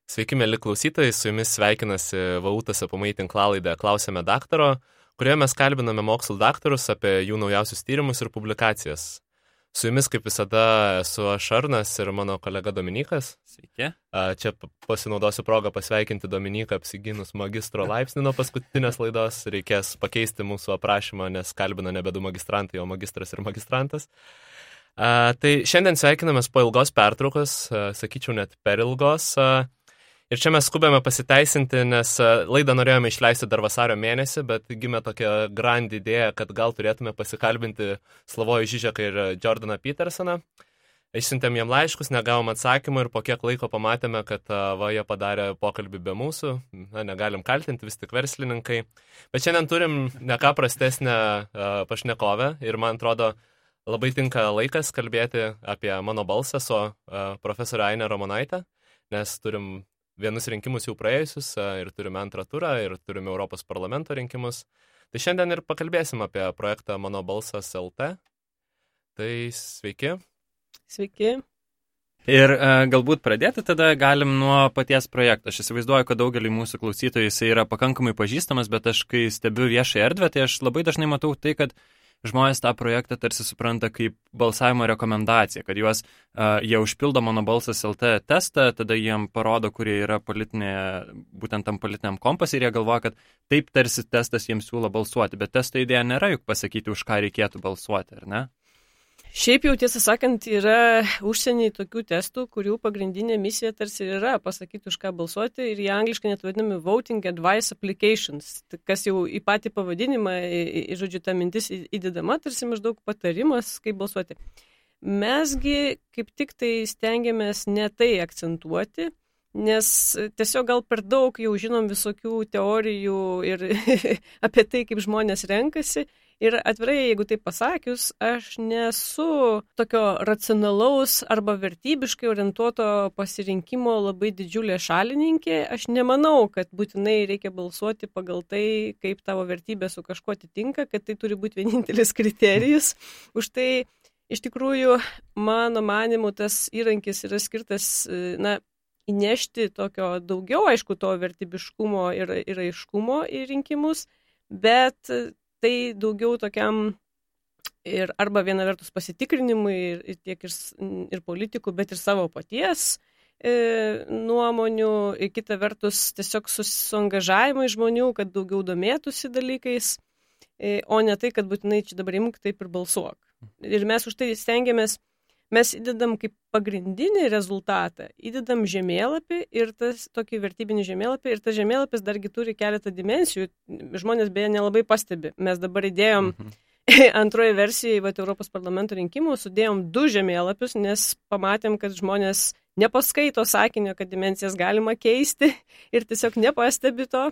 Sveiki, mėly klausytojai, su jumis sveikinasi VAU TSPMI tinklalaidė Klausėme daktaro, kurioje mes kalbiname mokslų daktarus apie jų naujausius tyrimus ir publikacijas. Su jumis, kaip visada, esu aš Arnas ir mano kolega Dominikas. Sveiki. Čia pasinaudosiu progą pasveikinti Dominiką apsigynus magistro laipsnį nuo paskutinės laidos. Reikės pakeisti mūsų aprašymą, nes kalbina nebe du magistrantai, o magistras ir magistrantas. Tai šiandien sveikinamės po ilgos pertraukos, sakyčiau net per ilgos. Ir čia mes skubėme pasiteisinti, nes laidą norėjome išleisti dar vasario mėnesį, bet gimė tokia grand idėja, kad gal turėtume pasikalbinti Slavojų Žižeką ir Jordaną Petersoną. Išsiuntėm jiem laiškus, negavom atsakymą ir po kiek laiko pamatėme, kad jie padarė pokalbį be mūsų. Negalim kaltinti, vis tik verslininkai. Bet šiandien turim ne ką prastesnę pašnekovę ir man atrodo labai tinka laikas kalbėti apie mano balsą su profesorė Ainė Ramonaitė, nes turim vienus rinkimus jau praėjusius ir turime antrą turą ir turime Europos parlamento rinkimus. Tai šiandien ir pakalbėsim apie projektą Mano balsas LT. Tai sveiki. Sveiki. Ir galbūt pradėti tada galim nuo paties projekto. Aš įsivaizduoju, kad daugelį mūsų klausytojų jisai yra pakankamai pažįstamas, bet aš kai stebiu viešą erdvę, tai aš labai dažnai matau tai, kad žmonės tą projektą tarsi supranta kaip balsavimo rekomendaciją, kad jie užpildo Mano balsas LT testą, tada jiem parodo, kurie yra būtent tam politiniam kompas ir jie galvoja, kad taip tarsi testas jiems siūlo balsuoti, bet testo idėja nėra juk pasakyti, už ką reikėtų balsuoti, ar ne? Šiaip jau tiesą sakant, yra užsieniai tokių testų, kurių pagrindinė misija tarsi yra pasakyti, už ką balsuoti ir jie angliškai net vadinami Voting Advice Applications, kas jau į patį pavadinimą, žodžiu, ta mintis įdedama, tarsi maždaug patarimas, kaip balsuoti. Mesgi kaip tik tai stengiamės ne tai akcentuoti, nes tiesiog gal per daug jau žinom visokių teorijų ir apie tai, kaip žmonės renkasi. Ir atvirai, jeigu taip pasakius, aš nesu tokio racionalaus arba vertybiškai orientuoto pasirinkimo labai didžiulė šalininkė. Aš nemanau, kad būtinai reikia balsuoti pagal tai, kaip tavo vertybė su kažkuo atitinka, kad tai turi būti vienintelis kriterijus. Už tai, iš tikrųjų, mano manimu, tas įrankis yra skirtas, įnešti tokio daugiau, aišku, to vertybiškumo ir aiškumo į rinkimus, bet tai daugiau tokiam ir arba viena vertus pasitikrinimui ir tiek ir politikų, bet ir savo paties nuomonių, ir kita vertus tiesiog suangažavimui žmonių, kad daugiau domėtųsi dalykais, o ne tai, kad būtinai čia dabar imk taip ir balsuok. Ir mes už tai stengiamės, mes įdedam kaip pagrindinį rezultatą, įdedam žemėlapį ir tas tokį vertybinį žemėlapį ir tas žemėlapis dargi turi keletą dimensijų. Žmonės beje nelabai pastebi. Mes dabar įdėjom antroje versijoje Europos parlamento rinkimų, sudėjom 2 žemėlapius, nes pamatėm, kad žmonės nepaskaito sakinio, kad dimensijas galima keisti ir tiesiog nepastebi to.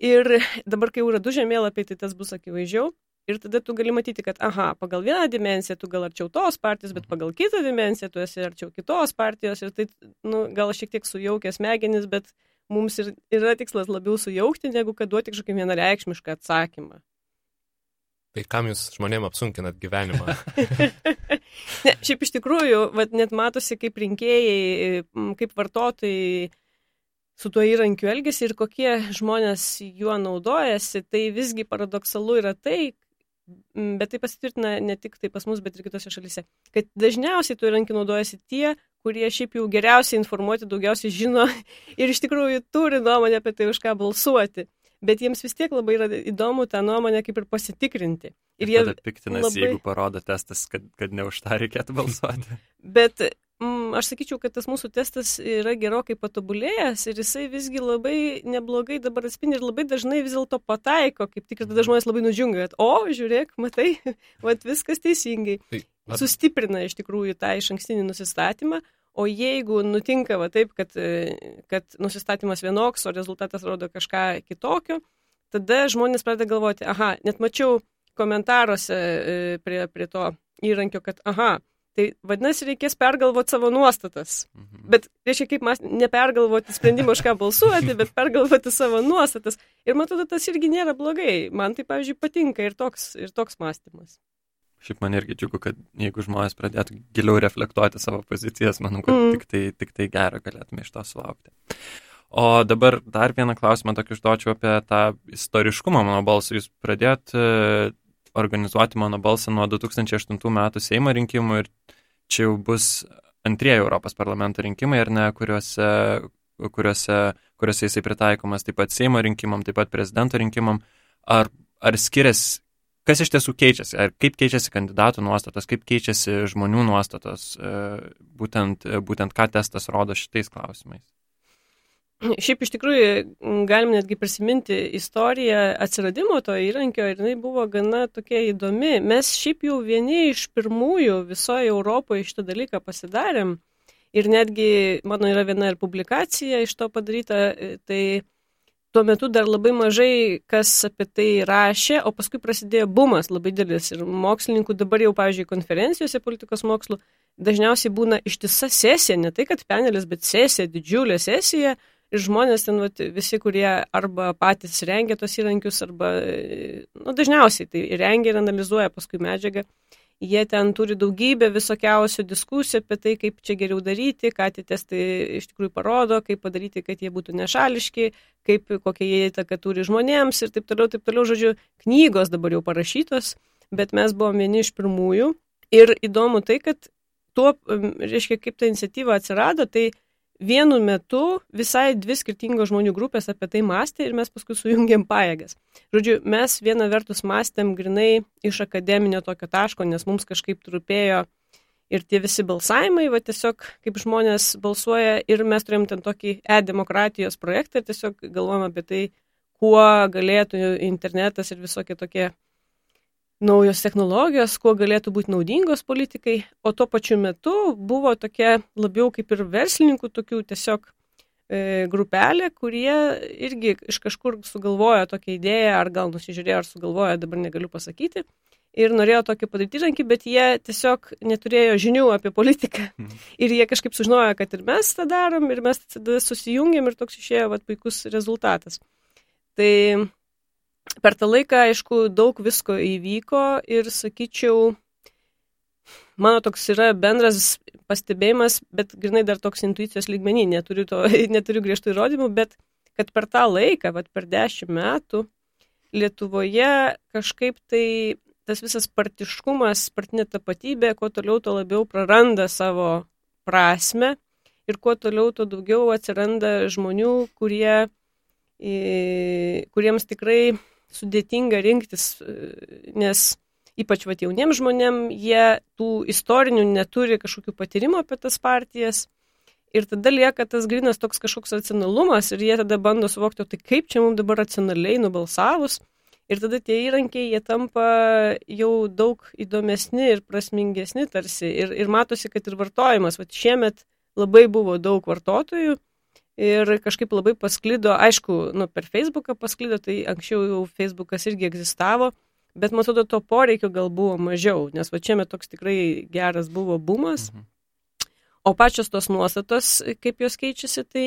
Ir dabar, kai jau yra 2 žemėlapiai, tai tas bus akivaizdžiau. Ir tada tu gali matyti, kad, pagal vieną dimensiją tu gal arčiau tos partijos, bet pagal kitą dimensiją tu esi arčiau kitos partijos. Ir tai, gal šiek tiek sujaukia smegenis, bet mums yra tikslas labiau sujaukti, negu kad duoti kažkokį vienareikšmišką atsakymą. Tai kam jūs žmonėm apsunkinat gyvenimą? Ne, šiaip iš tikrųjų, net matosi kaip rinkėjai, kaip vartotojai su tuo įrankiu elgiasi ir kokie žmonės juo naudojasi. Tai visgi paradoksalu yra tai, bet tai pasitvirtina ne tik tai pas mus, bet ir kitose šalyse, kad dažniausiai tuo įrankiu naudojasi tie, kurie šiaip jau geriausiai informuoti, daugiausiai žino ir iš tikrųjų turi nuomonę apie tai, už ką balsuoti. Bet jiems vis tiek labai yra įdomu tą nuomonę kaip ir pasitikrinti. Ir tada piktinasi, jeigu parodo testas, kad ne už tą reikėtų balsuoti. Bet aš sakyčiau, kad tas mūsų testas yra gerokai patobulėjęs ir jisai visgi labai neblogai dabar atspindi ir labai dažnai vis dėlto pataiko, kaip tik ir tada žmonės labai nudžiunga, kad žiūrėk, matai, viskas teisingai. Sustiprina iš tikrųjų tą išankstinį nusistatymą, o jeigu nutinka taip, kad nusistatymas vienoks, o rezultatas rodo kažką kitokio, tada žmonės pradeda galvoti, net mačiau komentaruose prie to įrankio, kad tai vadinasi, reikės pergalvoti savo nuostatas. Bet reiškia, kaip nepergalvoti sprendimą, už ką balsuoti, bet pergalvoti savo nuostatas. Ir man atrodo, tas irgi nėra blogai. Man tai, pavyzdžiui, patinka ir toks mąstymas. Šiaip man irgi džiugu, kad jeigu žmonės pradėtų giliau reflektuoti savo pozicijas, manau, kad tik tai gerą galėtume iš to sulaukti. O dabar dar vieną klausimą tokį užduočiau apie tą istoriškumą Mano balso. Jūs pradėjot organizuoti Mano balsą nuo 2008 metų Seimo rinkimų ir čia jau bus antrieji Europos parlamento rinkimai, ar ne, kuriuose jisai pritaikomas taip pat Seimo rinkimam, taip pat prezidento rinkimam. Ar skiriasi, kas iš tiesų keičiasi, ar kaip keičiasi kandidatų nuostatos, kaip keičiasi žmonių nuostatos, būtent ką testas rodo šitais klausimais? Šiaip iš tikrųjų galim netgi prisiminti istoriją atsiradimo to įrankio ir jinai buvo gana tokia įdomi. Mes šiaip jau vieni iš pirmųjų visoje Europoje šitą dalyką pasidarėm ir netgi mano yra viena ir publikacija iš to padaryta, tai tuo metu dar labai mažai kas apie tai rašė, o paskui prasidėjo bumas labai didelis ir mokslininkų dabar jau, pavyzdžiui, konferencijose politikos mokslų dažniausiai būna ištisa sesija, ne tai kad panelis, bet sesija, didžiulė sesija. Ir žmonės ten visi, kurie arba patys rengia tos įrankius, arba dažniausiai tai rengia ir analizuoja paskui medžiagą. Jie ten turi daugybę visokiausių diskusijų apie tai, kaip čia geriau daryti, ką tie testai iš tikrųjų parodo, kaip padaryti, kad jie būtų nešališki, kokie jie įtaką turi žmonėms ir taip toliau, žodžiu, knygos dabar jau parašytos, bet mes buvom vieni iš pirmųjų. Ir įdomu tai, kad tuo, reiškia, kaip ta iniciatyva atsirado, tai vienu metu visai dvi skirtingos žmonių grupės apie tai mąstė ir mes paskui sujungėm pajėgas. Žodžiu, mes viena vertus mąstėm grinai iš akademinio tokio taško, nes mums kažkaip trupėjo ir tie visi balsavimai, tiesiog kaip žmonės balsuoja ir mes turėjom ten tokį e-demokratijos projektą ir tiesiog galvojom apie tai, kuo galėtų internetas ir visokie tokie naujos technologijos, kuo galėtų būti naudingos politikai, o tuo pačiu metu buvo tokia labiau kaip ir verslininkų tokių tiesiog grupelė, kurie irgi iš kažkur sugalvojo tokią idėją, ar gal nusižiūrėjo, ar sugalvojo, dabar negaliu pasakyti, ir norėjo tokį padaryti įrankį, bet jie tiesiog neturėjo žinių apie politiką. Ir jie kažkaip sužinojo, kad ir mes tą darom, ir mes tada susijungėm ir toks išėjo puikus rezultatas. Tai per tą laiką, aišku, daug visko įvyko ir, sakyčiau, mano toks yra bendras pastebėjimas, bet grinai dar toks intuicijos lygmenį, neturiu griežtų įrodymų, bet kad per tą laiką, per 10 metų, Lietuvoje kažkaip tai tas visas partiškumas, partinė tapatybė, kuo toliau, to labiau praranda savo prasme ir kuo toliau, to daugiau atsiranda žmonių, kuriems tikrai sudėtinga rinktis, nes ypač jauniems žmonėm, jie tų istorinių neturi kažkokių patyrimų apie tas partijas ir tada lieka tas grynas toks kažkoks racionalumas ir jie tada bando suvokti, tai kaip čia mums dabar racionaliai nubalsavus ir tada tie įrankiai, jie tampa jau daug įdomesni ir prasmingesni tarsi ir matosi, kad ir vartojimas, šiemet labai buvo daug vartotojų. Ir kažkaip labai pasklido, aišku, per Facebooką pasklido, tai anksčiau jau Facebookas irgi egzistavo, bet man atrodo, to poreikio gal buvo mažiau, nes šiemet toks tikrai geras buvo bumas. O pačios tos nuostatos, kaip jos keičiasi, tai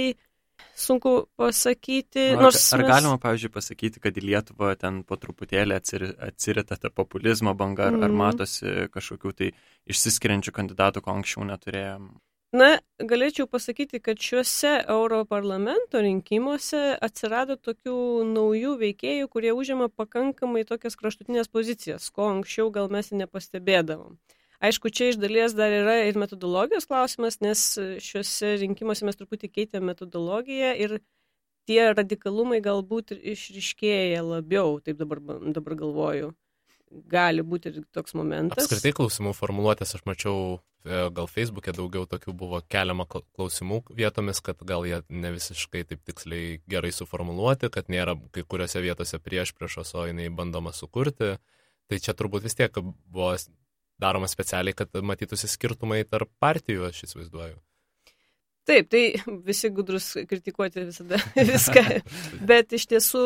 sunku pasakyti. Ar galima, pavyzdžiui, pasakyti, kad į Lietuvą ten po truputėlį atsirita ta populizmo banga, ar matosi kažkokių tai išsiskiriančių kandidatų, ko anksčiau neturėjom? Na, galėčiau pasakyti, kad šiuose Europarlamento rinkimuose atsirado tokių naujų veikėjų, kurie užima pakankamai tokias kraštutinės pozicijas, ko anksčiau gal mes nepastebėdavom. Aišku, čia iš dalies dar yra ir metodologijos klausimas, nes šiuose rinkimuose mes truputį keitėm metodologiją ir tie radikalumai galbūt išryškėja labiau, taip dabar galvoju. Gali būti ir toks momentas. Apskritai klausimų formuluotės, aš mačiau, gal Facebook'e daugiau tokių buvo keliama klausimų vietomis, kad gal jie ne visiškai taip tiksliai gerai suformuluoti, kad nėra kai kuriuose vietose priešpriešos, o jinai bandoma sukurti. Tai čia turbūt vis tiek buvo daroma specialiai, kad matytųsi skirtumai tarp partijų, aš įsivaizduoju. Taip, tai visi gudrus kritikuoti visada viską, bet iš tiesų,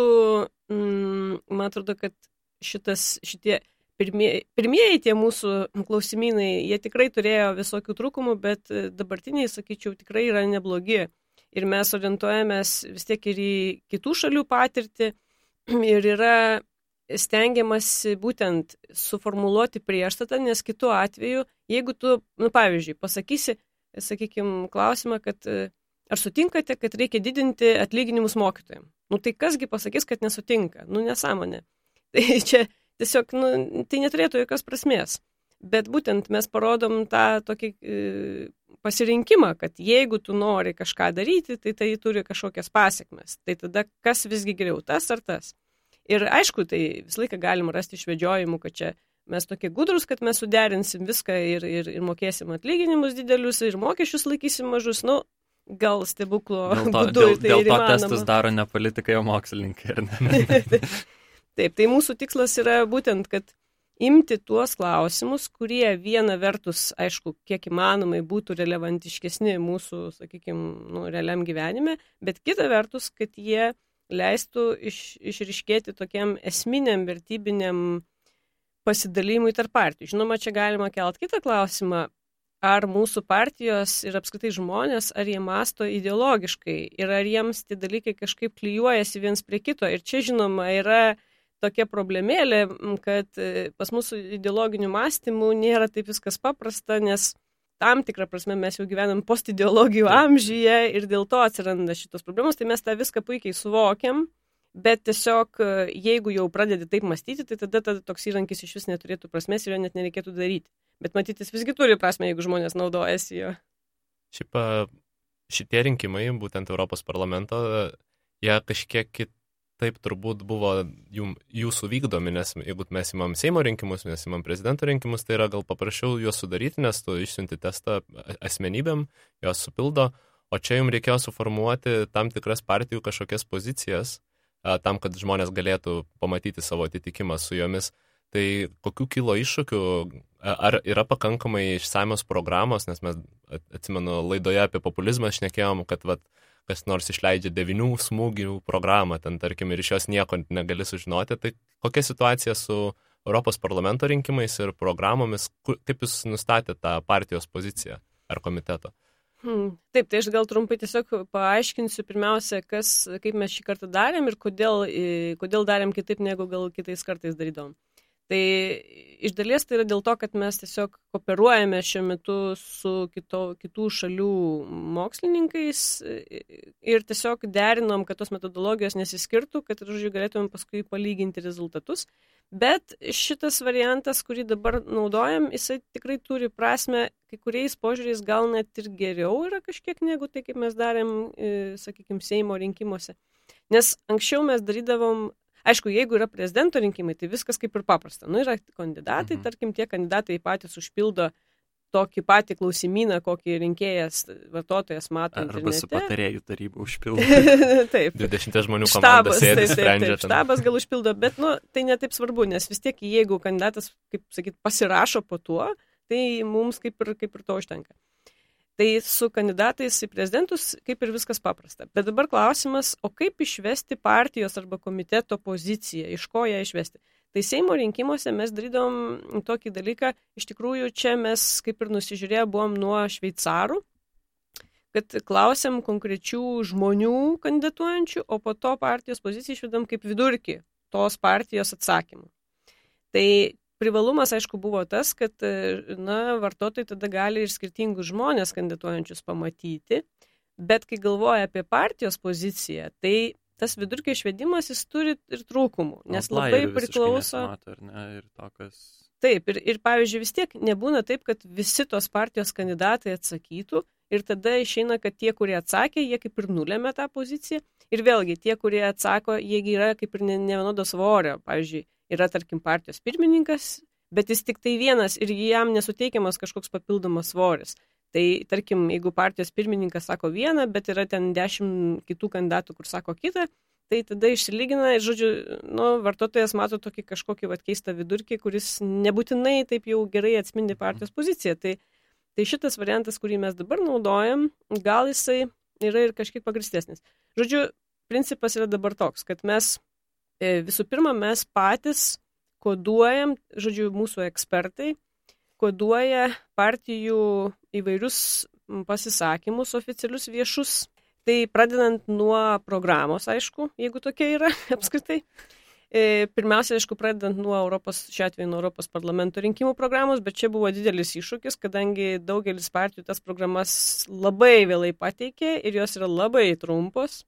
man atrodo, kad šitie pirmieji tie mūsų klausimynai, jie tikrai turėjo visokių trūkumų, bet dabartiniai, sakyčiau, tikrai yra neblogi. Ir mes orientuojamės vis tiek ir į kitų šalių patirtį. Ir yra stengiamasi būtent suformuluoti priešstatą, nes kitu atveju, jeigu tu, pavyzdžiui, pasakysi, sakykime, klausimą, kad ar sutinkate, kad reikia didinti atlyginimus mokytojams? Tai kasgi pasakys, kad nesutinka? Nesąmonė. Tai čia tiesiog, tai neturėtų jokios prasmės. Bet būtent mes parodom tą tokį pasirinkimą, kad jeigu tu nori kažką daryti, tai turi kažkokias pasiekmes. Tai tada kas visgi geriau, tas ar tas? Ir aišku, tai visą laiką galim rasti išvedžiojimų, kad čia mes tokie gudrus, kad mes suderinsim viską ir mokėsim atlyginimus didelius ir mokesčius laikysim mažus. Gal stebuklo būdu tai dėl to įmanoma. testus daro ne politikai, o mokslininkai, ar ne? Taip, tai mūsų tikslas yra būtent, kad imti tuos klausimus, kurie viena vertus, aišku, kiek įmanomai būtų relevantiškesni mūsų, sakykime, realiam gyvenime, bet kita vertus, kad jie leistų išryškėti tokiam esminiam vertybiniam pasidalymui tarp partijų. Žinoma, čia galima kelt kitą klausimą, ar mūsų partijos ir apskritai žmonės, ar jie masto ideologiškai ir ar jiems tie dalykai kažkaip klijuojasi viens prie kito. Ir čia, žinoma, yra tokia problemėlė, kad pas mūsų ideologinių mąstymų nėra taip viskas paprasta, nes tam tikrą prasme mes jau gyvenam postideologijų amžiuje ir dėl to atsiranda šitos problemos, tai mes tą viską puikiai suvokiam, bet tiesiog jeigu jau pradedi taip mąstyti, tai tada toks įrankis iš vis neturėtų prasmės ir jo net nereikėtų daryti. Bet matyti, jis visgi turi prasme, jeigu žmonės naudojasi jo. Šiaip šitie rinkimai, būtent Europos parlamento, jie kažkiek kitaip turbūt buvo jūsų vykdomi, nes jeigu mes imam Seimo rinkimus, mes imam prezidento rinkimus, tai yra gal paprasčiau juos sudaryti, nes tu išsiunti testą asmenybėm, jos supildo, o čia jums reikėjo suformuoti tam tikras partijų kažkokias pozicijas, tam, kad žmonės galėtų pamatyti savo atitikimą su jomis. Tai kokių kilo iššūkių, ar yra pakankamai išsamios programos, nes mes, atsimenu, laidoje apie populizmą šnekėjom, kad kas nors išleidžia 9 smūgių programą, ten tarkim, ir iš jos nieko negali sužinoti, tai kokia situacija su Europos parlamento rinkimais ir programomis, kaip jūs nustatėte tą partijos poziciją ar komiteto? Taip, tai aš gal trumpai tiesiog paaiškinsiu pirmiausia, kaip mes šį kartą darėm ir kodėl darėm kitaip, negu gal kitais kartais darydom. Tai iš dalies tai yra dėl to, kad mes tiesiog kooperuojame šiuo metu su kitų šalių mokslininkais ir tiesiog derinom, kad tos metodologijos nesiskirtų, kad galėtumėm paskui palyginti rezultatus. Bet šitas variantas, kurį dabar naudojam, jisai tikrai turi prasme, kai kuriais požiūriais gal net ir geriau yra kažkiek negu tai, kaip mes darėm, sakykime, Seimo rinkimuose. Nes anksčiau mes darydavom, aišku, jeigu yra prezidento rinkimai, tai viskas kaip ir paprasta. Yra kandidatai, tarkim, tie kandidatai patys užpildo tokį patį klausimyną, kokį rinkėjas, vartotojas mato internete. Arba su patarėjų taryba užpildo. Taip. 20 žmonių komanda sėdi, sprendžia. Taip, štabas gal užpildo, bet tai netaip svarbu, nes vis tiek, jeigu kandidatas, kaip sakyt, pasirašo po tuo, tai mums kaip ir to užtenka. Tai su kandidatais į prezidentus kaip ir viskas paprasta. Bet dabar klausimas, o kaip išvesti partijos arba komiteto poziciją, iš ko ją išvesti? Tai Seimo rinkimuose mes darydom tokį dalyką, iš tikrųjų čia mes kaip ir nusižiūrėję buvom nuo šveicarų, kad klausėm konkrečių žmonių kandidatuojančių, o po to partijos poziciją išvedam kaip vidurkį tos partijos atsakymų. Tai privalumas, aišku, buvo tas, kad vartotojai tada gali ir skirtingus žmonės kandidatuojančius pamatyti, bet kai galvoja apie partijos poziciją, tai tas vidurkio išvedimas jis turi ir trūkumų, nes labai priklauso. Taip, ir pavyzdžiui, vis tiek nebūna taip, kad visi tos partijos kandidatai atsakytų ir tada išeina, kad tie, kurie atsakė, jie kaip ir nulėmė tą poziciją ir vėlgi tie, kurie atsako, jie yra kaip ir nevienodo svorio, pavyzdžiui, yra, tarkim, partijos pirmininkas, bet jis tik tai vienas ir jam nesuteikiamas kažkoks papildomas svoris. Tai, tarkim, jeigu partijos pirmininkas sako vieną, bet yra ten 10 kitų kandidatų, kur sako kitą, tai tada išsilygina ir, žodžiu, vartotojas mato tokį kažkokį keistą vidurkį, kuris nebūtinai taip jau gerai atspindi partijos poziciją. Tai šitas variantas, kurį mes dabar naudojam, gal jisai yra ir kažkiek pagristesnis. Žodžiu, principas yra dabar toks, kad mes visų pirma, mes patys koduojam, žodžiu, mūsų ekspertai koduoja partijų įvairius pasisakymus oficialius viešus. Tai pradedant nuo programos, aišku, jeigu tokia yra apskritai. Pirmiausia, aišku, pradedant šiuo atveju nuo Europos parlamento rinkimų programos, bet čia buvo didelis iššūkis, kadangi daugelis partijų tas programas labai vėlai pateikė ir jos yra labai trumpos.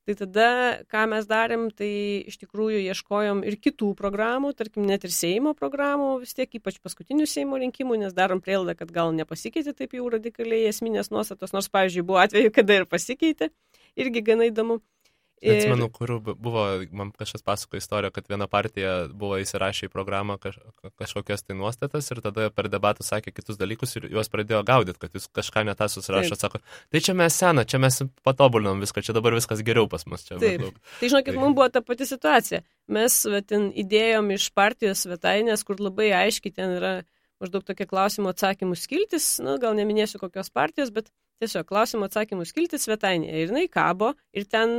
Tai tada, ką mes darėm, tai iš tikrųjų ieškojom ir kitų programų, tarkim, net ir Seimo programų, vis tiek ypač paskutinių Seimo rinkimų, nes darom prielaidą, kad gal nepasikeitė taip jau radikaliai esminės nuostatos, nors, pavyzdžiui, buvo atveju, kada ir pasikeitė, irgi gana įdomu. Atsimenu, kur buvo, man kažkas pasako istoriją, kad viena partija buvo įsirašę į programą kažkokias tai nuostatas ir tada per debatų sakė kitus dalykus ir juos pradėjo gaudyti, kad jūs kažką netą susirašot, sako, tai čia mes sena, čia mes patobulinom viską, čia dabar viskas geriau pas mus. Čia taip, tai žinokit, mums buvo ta pati situacija. Mes ten įdėjom iš partijos svetainės, kur labai aiškiai ten yra maždaug tokie klausimų atsakymų skiltis, gal neminėsiu kokios partijos, bet tiesiog klausimų atsakymų skiltis svetainėje. Ir jinai kabo ir ten,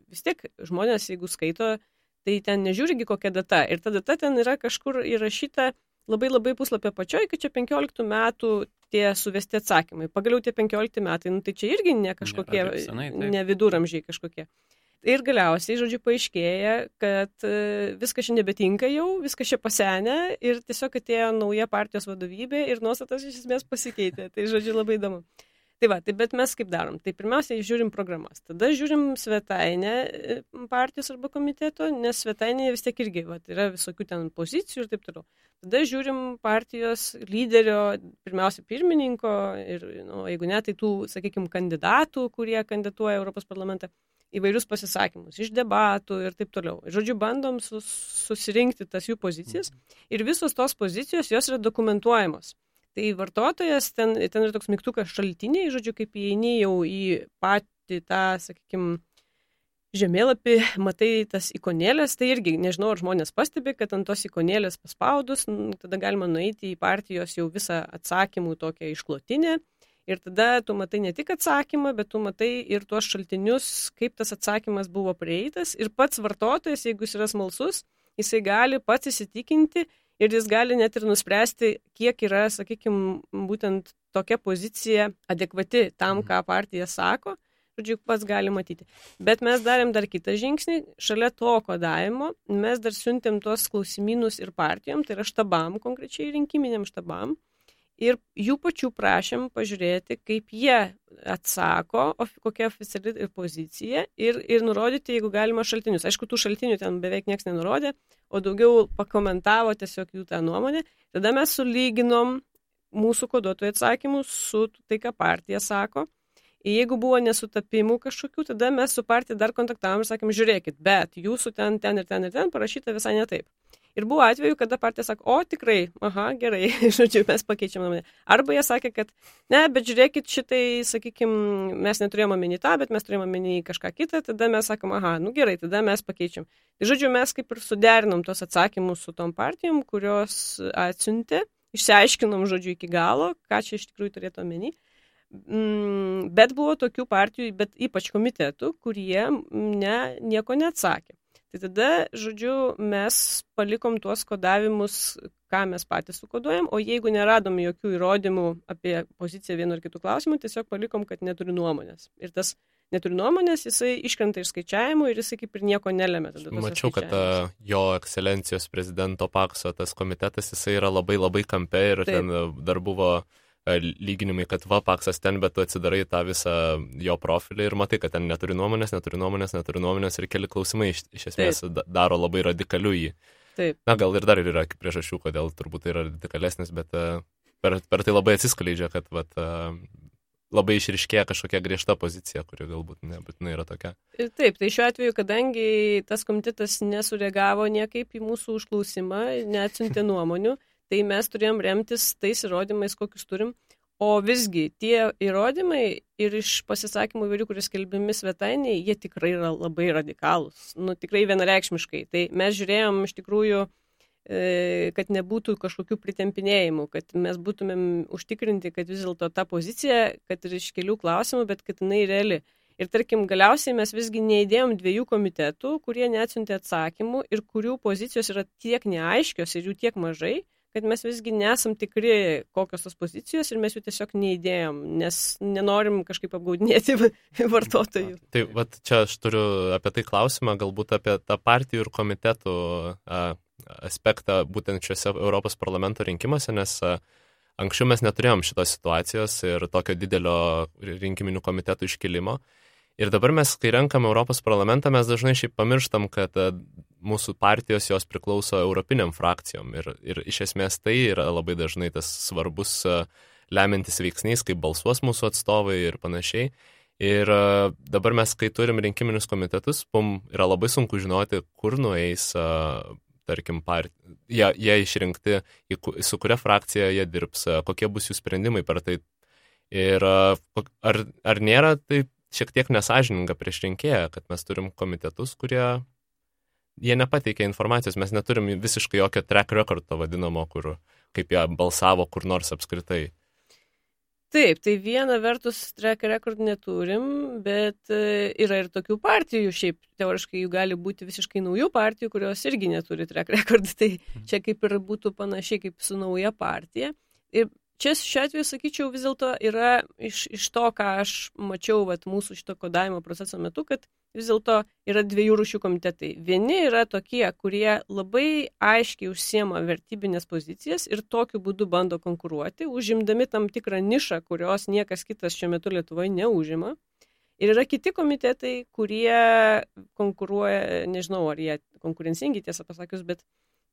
vis tiek žmonės, jeigu skaito, tai ten nežiūrigi kokia data. Ir ta data ten yra kažkur įrašyta labai puslapio pačioj, kad čia 15 metų tie suvesti atsakymai. Pagaliau tie 15 metai, tai čia irgi ne kažkokie, ne viduramžiai kažkokie. Ir galiausiai, žodžiu, paaiškėja, kad viskas čia nebetinka jau, viskas čia pasenę ir tiesiog atėjo nauja partijos vadovybė ir nuostatas iš esmės pasikeitė. Tai, žodžiu, labai įdomu. Tai bet mes kaip darom? Tai pirmiausia, žiūrim programas. Tada žiūrim svetainę partijos arba komiteto, nes svetainėje vis tiek irgi yra visokių ten pozicijų ir taip toliau. Tada žiūrim partijos lyderio, pirmiausia, pirmininko ir, jeigu ne, tai tų, sakykime, kandidatų, kurie kandidatuoja Europos parlamentą, įvairius pasisakymus, iš debatų ir taip toliau. Žodžiu, bandom susirinkti tas jų pozicijas ir visos tos pozicijos, jos yra dokumentuojamos. Tai vartotojas, ten yra toks mygtukas šaltiniai, žodžiu, kaip įeini jau į patį tą, sakykime, žemėlapį, matai tas ikonėlės, tai irgi, nežinau, ar žmonės pastebi, kad ant tos ikonėlės paspaudus, tada galima nueiti į partijos jau visą atsakymų tokią išklotinę. Ir tada tu matai ne tik atsakymą, bet tu matai ir tuos šaltinius, kaip tas atsakymas buvo prieitas. Ir pats vartotojas, jeigu jis yra smalsus, jisai gali pats įsitikinti ir jis gali net ir nuspręsti, kiek yra, sakykime, būtent tokia pozicija adekvati tam, ką partija sako. Žodžiu, pats gali matyti. Bet mes darėm dar kitą žingsnį. Šalia to kodavimo mes dar siuntėm tuos klausimynus ir partijom, tai yra štabam, konkrečiai rinkiminiam štabam. Ir jų pačių prašėm pažiūrėti, kaip jie atsako, kokia oficiali pozicija ir nurodyti, jeigu galima, šaltinius. Aišku, tų šaltinių ten beveik niekas nenurodė, o daugiau pakomentavo tiesiog jų tą nuomonę. Tada mes sulyginom mūsų koduotojų atsakymus su tai, ką partija sako. Ir jeigu buvo nesutapimų kažkokių, tada mes su partija dar kontaktavom ir sakėm, žiūrėkit, bet jūsų ten parašyta visai ne taip. Ir buvo atveju, kada partija sako, o tikrai, gerai, žodžiu, mes pakeičiam nuomonę. Arba jie sakė, kad ne, bet žiūrėkit, šitai, sakykime, mes neturėjome omeny tą, bet mes turėjome omeny kažką kitą, tada mes sakom, gerai, tada mes pakeičiam. Tai žodžiu, mes kaip ir suderinom tos atsakymus su tom partijom, kurios atsiuntė, išsiaiškinom, žodžiu, iki galo, ką čia iš tikrųjų turėtų omeny. Bet buvo tokių partijų, bet ypač komitetų, kurie nieko neatsakė. Tai tada, žodžiu, mes palikom tuos kodavimus, ką mes patys sukoduojam, o jeigu neradom jokių įrodymų apie poziciją vienu ar kitų klausimų, tiesiog palikom, kad neturi nuomonės. Ir tas neturi nuomonės, jisai iškrenta iš skaičiavimų ir jisai kaip ir nieko nelemia. Mačiau, kad jo ekscelencijos prezidento Pakso tas komitetas, jisai yra labai kampe ir taip. Ten dar buvo lyginimai, kad Paksas ten, bet tu atsidarai tą visą jo profilį ir matai, kad ten neturi nuomonės ir keli klausimai iš esmės daro labai radikaliu jį. Taip. Gal ir dar yra priežasčių, kodėl turbūt tai yra radikalesnis, bet per tai labai atsiskleidžia, kad labai išriškėja kažkokia griežta pozicija, kuri galbūt nebūtinai yra tokia. Taip, tai šiuo atveju, kadangi tas komitetas nesureagavo niekaip į mūsų užklausimą, neatsiuntė nuomonių, tai mes turėjom remtis tais įrodymais, kokius turim, o visgi tie įrodymai ir iš pasisakymų įvairių, kurie skelbiami svetainėje, jie tikrai yra labai radikalūs, tikrai vienareikšmiškai. Tai mes žiūrėjom iš tikrųjų, kad nebūtų kažkokių pritempinėjimų, kad mes būtumėm užtikrinti, kad vis dėlto ta pozicija, kad ir iš kelių klausimų, bet kad jinai reali. Ir tarkim, galiausiai mes visgi neįdėjom 2 komitetų, kurie neatsiuntė atsakymų ir kurių pozicijos yra tiek neaiškios ir jų tiek mažai, kad mes visgi nesam tikri, kokios tos pozicijos ir mes jų tiesiog neįdėjom, nes nenorim kažkaip apgaudinėti vartotojų. Tai vat, čia aš turiu apie tai klausimą, galbūt apie tą partijų ir komitetų aspektą būtent šiuose Europos parlamento rinkimuose, nes anksčiau mes neturėjom šitos situacijos ir tokio didelio rinkiminių komitetų iškilimo. Ir dabar mes, kai renkam Europos parlamentą, mes dažnai šiaip pamirštam, kad mūsų partijos jos priklauso europiniam frakcijom. Ir iš esmės tai yra labai dažnai tas svarbus lemiantis veiksnys, kaip balsuos mūsų atstovai ir panašiai. Ir dabar mes, kai turim rinkiminius komitetus, yra labai sunku žinoti, kur nueis, tarkim, jie išrinkti, su kuria frakcija jie dirbs, kokie bus jų sprendimai per tai. Ir ar nėra tai šiek tiek nesažininga prieš rinkėją, kad mes turim komitetus, kurie jie nepateikia informacijos, mes neturim visiškai jokio track record to vadinamo, kaip jie balsavo kur nors apskritai. Taip, tai viena vertus track record neturim, bet yra ir tokių partijų, šiaip teoriškai jų gali būti visiškai naujų partijų, kurios irgi neturi track record, tai čia kaip ir būtų panašiai kaip su nauja partija. Ir čia šiuo atveju, sakyčiau, vis dėlto yra iš to, ką aš mačiau mūsų šito kodavimo proceso metu, kad vis dėlto yra dviejų rūšių komitetai. Vieni yra tokie, kurie labai aiškiai užsiema vertybinės pozicijas ir tokiu būdu bando konkuruoti, užimdami tam tikrą nišą, kurios niekas kitas šiuo metu Lietuvoje neužima. Ir yra kiti komitetai, kurie konkuruoja, nežinau, ar jie konkurencingi, tiesą pasakius, bet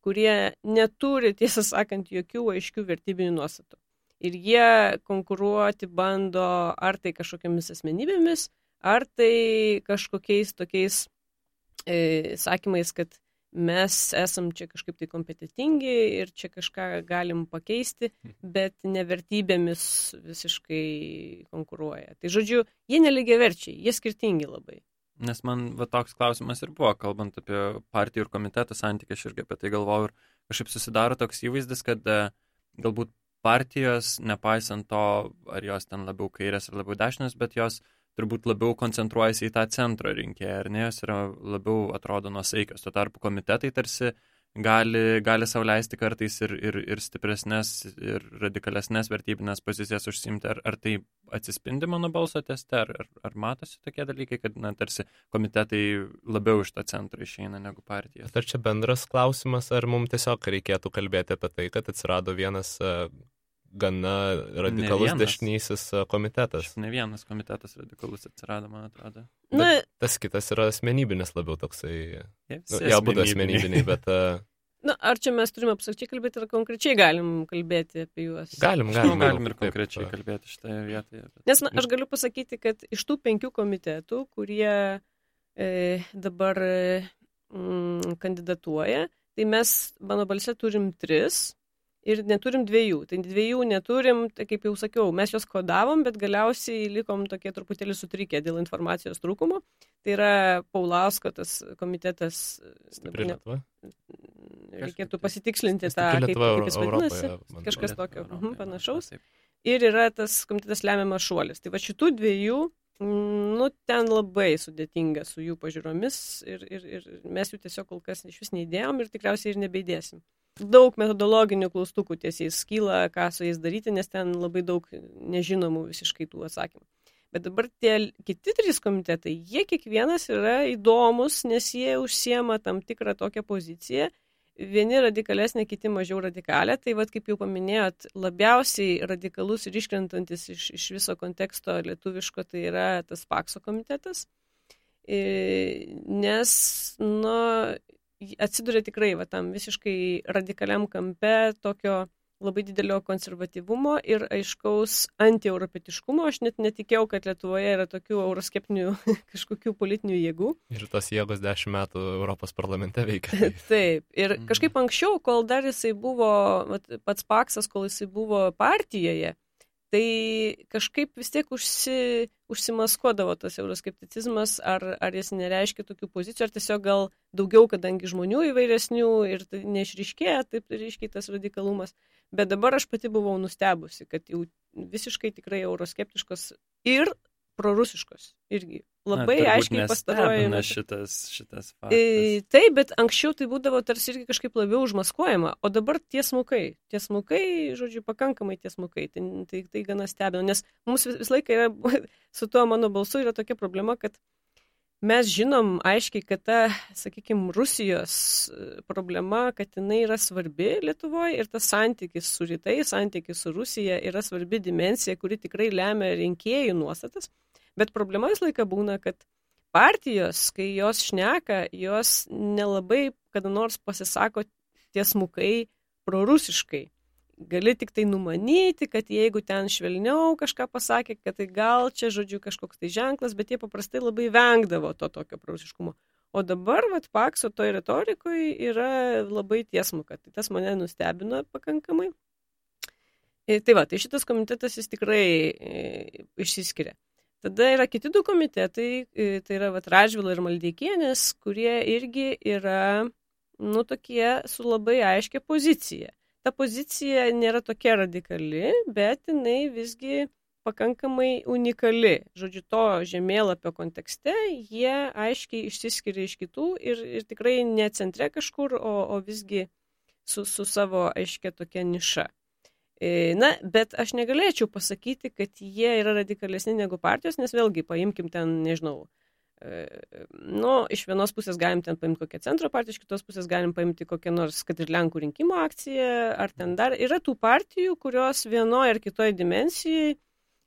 kurie neturi, tiesą sakant, jokių aiškių vertybinių nuostatų. Ir jie konkuruoti bando ar tai kažkokiamis asmenybėmis, ar tai kažkokiais tokiais sakymais, kad mes esam čia kažkaip tai kompetitingi ir čia kažką galim pakeisti, bet nevertybėmis visiškai konkuruoja. Tai žodžiu, jie nelygiaverčiai, jie skirtingi labai. Nes man toks klausimas ir buvo, kalbant apie partijų ir komitetų santykį, aš irgi apie tai galvojau ir kažkaip susidaro toks įvaizdis, kad galbūt partijos, nepaisant to, ar jos ten labiau kairės ar labiau dešinės, bet jos turbūt labiau koncentruojasi į tą centro rinkėją, ar ne, jos yra labiau atrodo nuosaikios. Tuo tarpu komitetai tarsi gali sau leisti kartais ir stipresnės, ir radikalesnės vertybinės pozicijas užsiimti. Ar tai atsispindi mano balso teste, ar matosi tokie dalykai, kad tarsi komitetai labiau iš to centro išeina negu partijos? Ar čia bendras klausimas, ar mums tiesiog reikėtų kalbėti apie tai, kad atsirado vienas gana radikalus dešinysis komitetas? Ne vienas komitetas radikalus atsirado, man atrodo. Bet tas kitas yra asmenybinis labiau toksai. Jie būtų asmenybiniai, bet... Ar čia mes turime absoliučiai kalbėti, ar konkrečiai galim kalbėti apie juos? Galim ir konkrečiai kalbėti šitoje vietoje. Nes aš galiu pasakyti, kad iš tų 5 komitetų, kurie dabar kandidatuoja, tai mes mano balse turim 3 ir neturim 2. Tai 2 neturim, tai kaip jau sakiau, mes juos kodavom, bet galiausiai likom tokie truputėlį sutrikę dėl informacijos trūkumo. Tai yra Paulausko tas komitetas. Stipri Lietuva? Reikėtų pasitikslinti tą, kaip jis vadinasi, kažkas tokio panašaus. Ir yra tas komitetas Lemiamas šuolis. Tai va šitų 2, ten labai sudėtinga su jų pažiūromis ir mes jų tiesiog kol kas iš vis neįdėjom ir tikriausiai ir nebeidėsim. Daug metodologinių klaustukų tiesiais kyla, ką su jais daryti, nes ten labai daug nežinomų visiškai tų atsakymų. Bet dabar tie kiti 3 komitetai, jie kiekvienas yra įdomus, nes jie užsiema tam tikrą tokią poziciją. Vieni radikalesnė, kiti mažiau radikalė. Tai kaip jau paminėjot, labiausiai radikalus ir iškrentantis iš viso konteksto lietuviško tai yra tas Pakso komitetas. Nes, atsiduria tikrai tam visiškai radikaliam kampe tokio labai didelio konservatyvumo ir aiškaus antieuropietiškumo. Aš net netikėjau, kad Lietuvoje yra tokių euroskeptinių kažkokių politinių jėgų. Ir tos jėgos 10 metų Europos parlamente veikia. Taip. Ir kažkaip anksčiau, kol dar jisai buvo, pats Paksas, kol jisai buvo partijoje, tai kažkaip vis tiek užsimaskuodavo tas euroskepticizmas, ar jis nereiškia tokių pozicijų, ar tiesiog gal daugiau, kadangi žmonių įvairesnių ir tai neišryškėja taip ryškiai tas radikalumas. Bet dabar aš pati buvau nustebusi, kad jau visiškai tikrai euroskeptiškos ir prorusiškos irgi. Labai aiškiai pastaruoju metu. Šitas faktas. Taip, bet anksčiau tai būdavo tarsi irgi kažkaip labiau užmaskuojama, o dabar tiesmukai, žodžiu, pakankamai tiesmukai, tai gana stebina, nes mums vis laiką yra, su tuo mano balsu yra tokia problema, kad mes žinom aiškiai, kad ta, sakykime, Rusijos problema, kad jinai yra svarbi Lietuvoje ir tas santykis su rytais, santykis su Rusija yra svarbi dimensija, kuri tikrai lemia rinkėjų nuostatas. Bet problema vis laiką būna, kad partijos, kai jos šneka, jos nelabai kada nors pasisako tiesmukai prorusiškai. Gali tik tai numanyti, kad jeigu ten švelniau kažką pasakė, kad tai gal čia, žodžiu, kažkoks tai ženklas, bet jie paprastai labai vengdavo to tokio prorusiškumo. O dabar, Pakso toj retorikoje yra labai tiesmuka. Tai tas mane nustebino pakankamai. Tai šitas komitetas jis tikrai išsiskiria. Tada yra kiti du komitetai, tai yra Radžvilo ir Maldeikienės, kurie irgi yra, tokie su labai aiškia pozicija. Ta pozicija nėra tokia radikali, bet jinai visgi pakankamai unikali. Žodžiu, to žemėlapio kontekste jie aiškiai išsiskiria iš kitų ir tikrai ne centre kažkur, o visgi su savo aiškia tokia niša. Bet aš negalėčiau pasakyti, kad jie yra radikalesni negu partijos, nes vėlgi paimkim ten, nežinau, iš vienos pusės galim ten paimti kokią centro partiją, iš kitos pusės galim paimti kokią nors, kad ir Lenkų rinkimų akciją, ar ten dar yra tų partijų, kurios vienoje ar kitoje dimensijai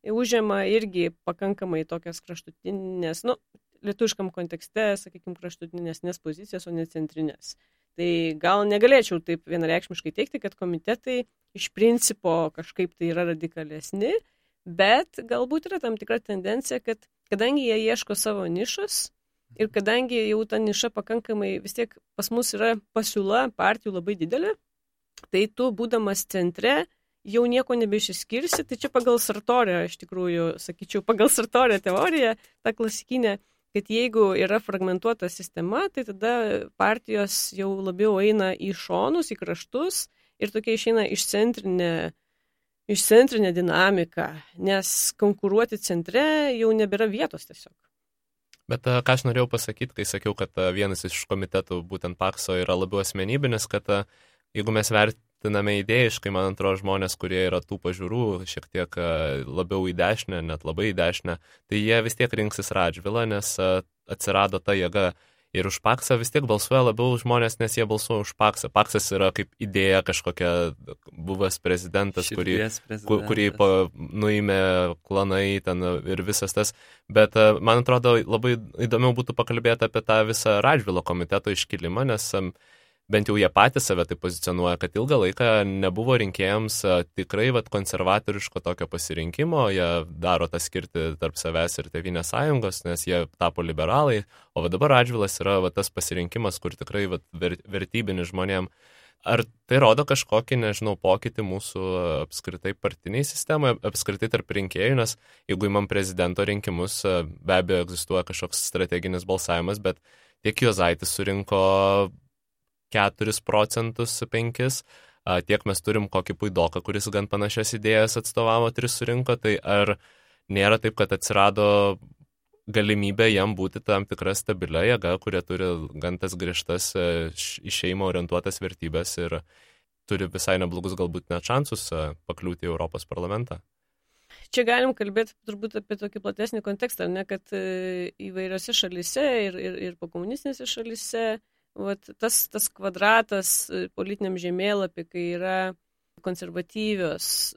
užima irgi pakankamai tokias kraštutinės, lietuviškam kontekste, sakykime, kraštutinės pozicijas, o ne centrinės. Tai gal negalėčiau taip vienareikšmiškai teikti, kad komitetai iš principo kažkaip tai yra radikalesni, bet galbūt yra tam tikra tendencija, kad kadangi jie ieško savo nišos ir kadangi jau ta niša pakankamai vis tiek pas mus yra pasiūla partijų labai didelė, tai tu būdamas centre jau nieko nebeišsiskirsi, tai čia pagal Sartorio, iš tikrųjų, sakyčiau, pagal Sartorio teoriją, ta klasikinė, kad jeigu yra fragmentuota sistema, tai tada partijos jau labiau eina į šonus, į kraštus ir tokia išeina išcentrinė dinamika, nes konkuruoti centre jau nebėra vietos tiesiog. Bet ką aš norėjau pasakyti, kai sakiau, kad vienas iš komitetų, būtent Pakso, yra labiau asmenybinis, kad jeigu mes vertiname idėjiškai, man atrodo, žmonės, kurie yra tų pažiūrų šiek tiek labiau į dešinę, net labai į dešinę, tai jie vis tiek rinksis Radžvilą, nes atsirado ta jėga. Ir už Paksą vis tiek balsuoja labiau žmonės, nes jie balsuoja už Paksą. Paksas yra kaip idėja kažkokia buvęs prezidentas, kurį nuėmė klanai ten ir visas tas. Bet man atrodo, labai įdomiau būtų pakalbėti apie tą visą Radžvilo komiteto iškilimą, nes bent jau jie patys save tai pozicionuoja, kad ilgą laiką nebuvo rinkėjams tikrai konservatoriško tokio pasirinkimo, jie daro tą skirtį tarp savęs ir Tėvynės sąjungos, nes jie tapo liberalai, o dabar Radžvilas yra tas pasirinkimas, kur tikrai vertybinis žmonėm. Ar tai rodo kažkokį, pokytį mūsų apskritai partiniai sistemoje, apskritai tarp rinkėjų, nes jeigu imam prezidento rinkimus, be abejo egzistuoja kažkoks strateginis balsavimas, bet tiek Juozaitis surinko 4 procentus, 5, tiek mes turim kokį Puidoką, kuris gan panašias idėjas atstovavo, 3 surinko, tai ar nėra taip, kad atsirado galimybė jam būti tam tikra stabilia jėga, kurie turi gan tas griežtas į šeimą orientuotas vertybės ir turi visai neblogus galbūt net šansus pakliūti į Europos parlamentą? Čia galim kalbėti turbūt apie tokį platesnį kontekstą, ne, kad įvairiose šalyse ir pokomunistinėse šalyse tas kvadratas politiniam žemėlapį, kai yra konservatyvios